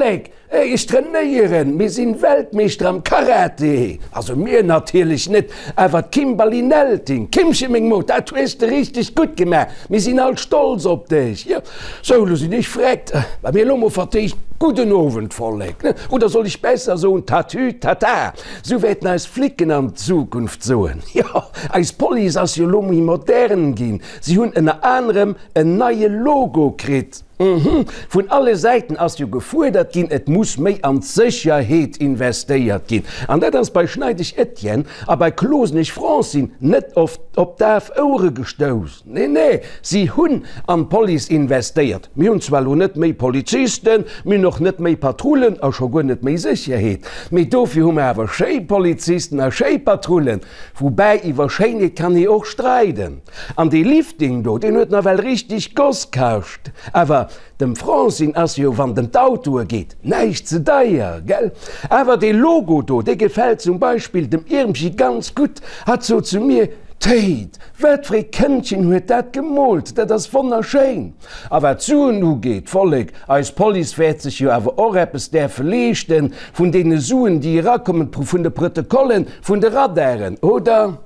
Vollek, ech trainéieren, mir sinn Weltmeeschter am Karate. Also mir natierlech net, awer d'Kimberly Nelting. Kimche meng Mod, dat hues de richteg gutt gemaach, mir sinn all stolz op dech. Jo, sou, lo sinn ech vreckt. Wa mir elo mol vertéischt, gudden Owend Vollek, ne? Oder soll ech besser soen Tatü tata? Sou wäerten eis Flicken an Zukunft soen. Jo, eis Police ass jo lo méi modern ginn, si hunn ënner anerem en neie Logo kritt. Uhmm, vun alle Säiten ass jo gefuerdert ginn, et muss méi an d'Sécherheet investéiert ginn. An dat ass bei Schneidesch Etienne a bei Klosenesch Francine net oft op daf Ouere gestouss. Nee, nee, si hunn an d'Police investéiert. Mir hunn zwar elo net méi Polizisten, mir hunn och net méi Patrullen a scho guer net méi Sécherheet, mee dofir hu mer awer schéi Polizisten a schéi Patrullen. Woubäi, iwwer Schéinheet kann ee och streiden. An dee Lifting do, deen huet nawell richteg Goss kascht. Awer dem Francine ass jo, wann et em d'Autoe geet, näischt ze deier, gell? Awer dee Logo do, dee gefält zum Beispill dem Irmchi ganz gutt. Hatt sot zu mir, Téit, wat fir ee Këndchen huet dat gemoolt, dat ass wonnerschéin! A wat d'Suen ugeet, Vollek, eis Police wäert sech jo awer och eppes däerfe leeschten vun deene Suen, déi erakommen, vun de Protokollen, vun de Radaren, oder?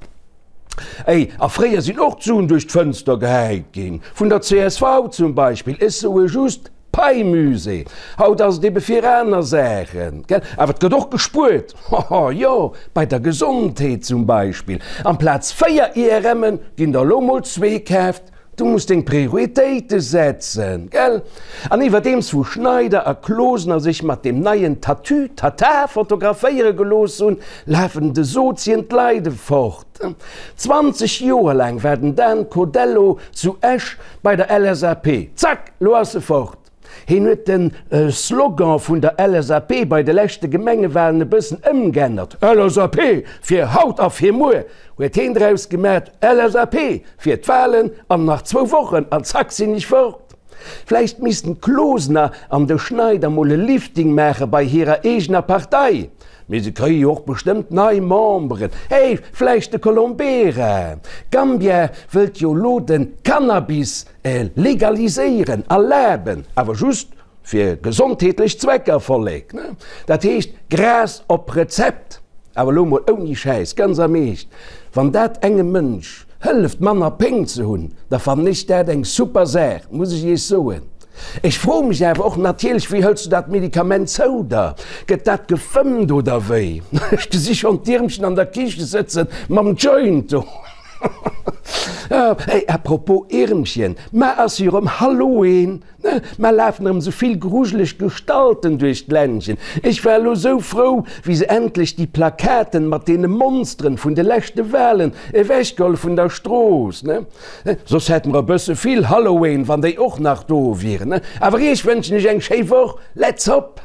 Ey, a fréier sinn och d'Suen duerch d'Fënster gehäit ginn, vun der csv zum Beispill, ech soe just Pei-Musée. Haut ass et ebe fir aner Saachen, gell? Awer et gëtt och gespuert, hoho, jo, bei der Gesondheet zum Beispill. Amplaz 4 IRMen ginn der elo mol zwee kaaft. Du muss deng Prioritéite setzen, gell? An iwwerdeems wou Schneider a Closener sech mat deem neien Tatü-Tata fotograféiere gelooss hunn, lafen de Sozien d'Leide fort. 20 Joer laang war den Dan Codello zu Esch bei der LSAP. Zack, lo ass e fort. Hien huet de Slogan vun der LSAP bei de leschte Gemengewalen e bëssen ëmg'ännert, LSAP fir haut a fir muer! huet heen draus gemat, LSAP fir d'Walen an nach zwou Wochen an zack sinn ech fort. Vläicht missten d'Closener an de Schneider mol e Lifting maache bei hirer eegener Partei. Mee se kréie jo och bestëmmt nei Memberen. Hey, vläicht de Colombera. Gambia wëllt jo lo de Cannabis legaliséieren, erlaben, awer just fir gesondheetlech Zwecker, Vollek, ne? Dat heescht Gras op Rezept. Awer elo mol ouni Schäiss, ganz am Eescht, wann dat engem Mënsch hëlleft manner Péng ze hunn, da fannen ech dat eng super Saach, muss ech iech soen. Ech froe mech awer och natierlech, wéi hëls du dat Medikament zou der? Gëtt dat gefëmmt oder wéi? Ech gesi schonn d'Iermchen an der Kiche sëtzen mam Joint do. Hey, à propos Iermchen, mar ass jo erëm Halloween! Mar lafen erëm sou vill grujeleg Gestalten duerch d'Ländchen. Ech war elo sou frou, wéi se endlech déi Plakaten mat deene Monsteren vun de leschte Walen ewechgeholl vun der Strooss, ne? Soss hätte mer e bësse vill Halloween, wann déi och nach do wieren, ne? Awer iech wënschen ech eng schéi Woch. Let's hop!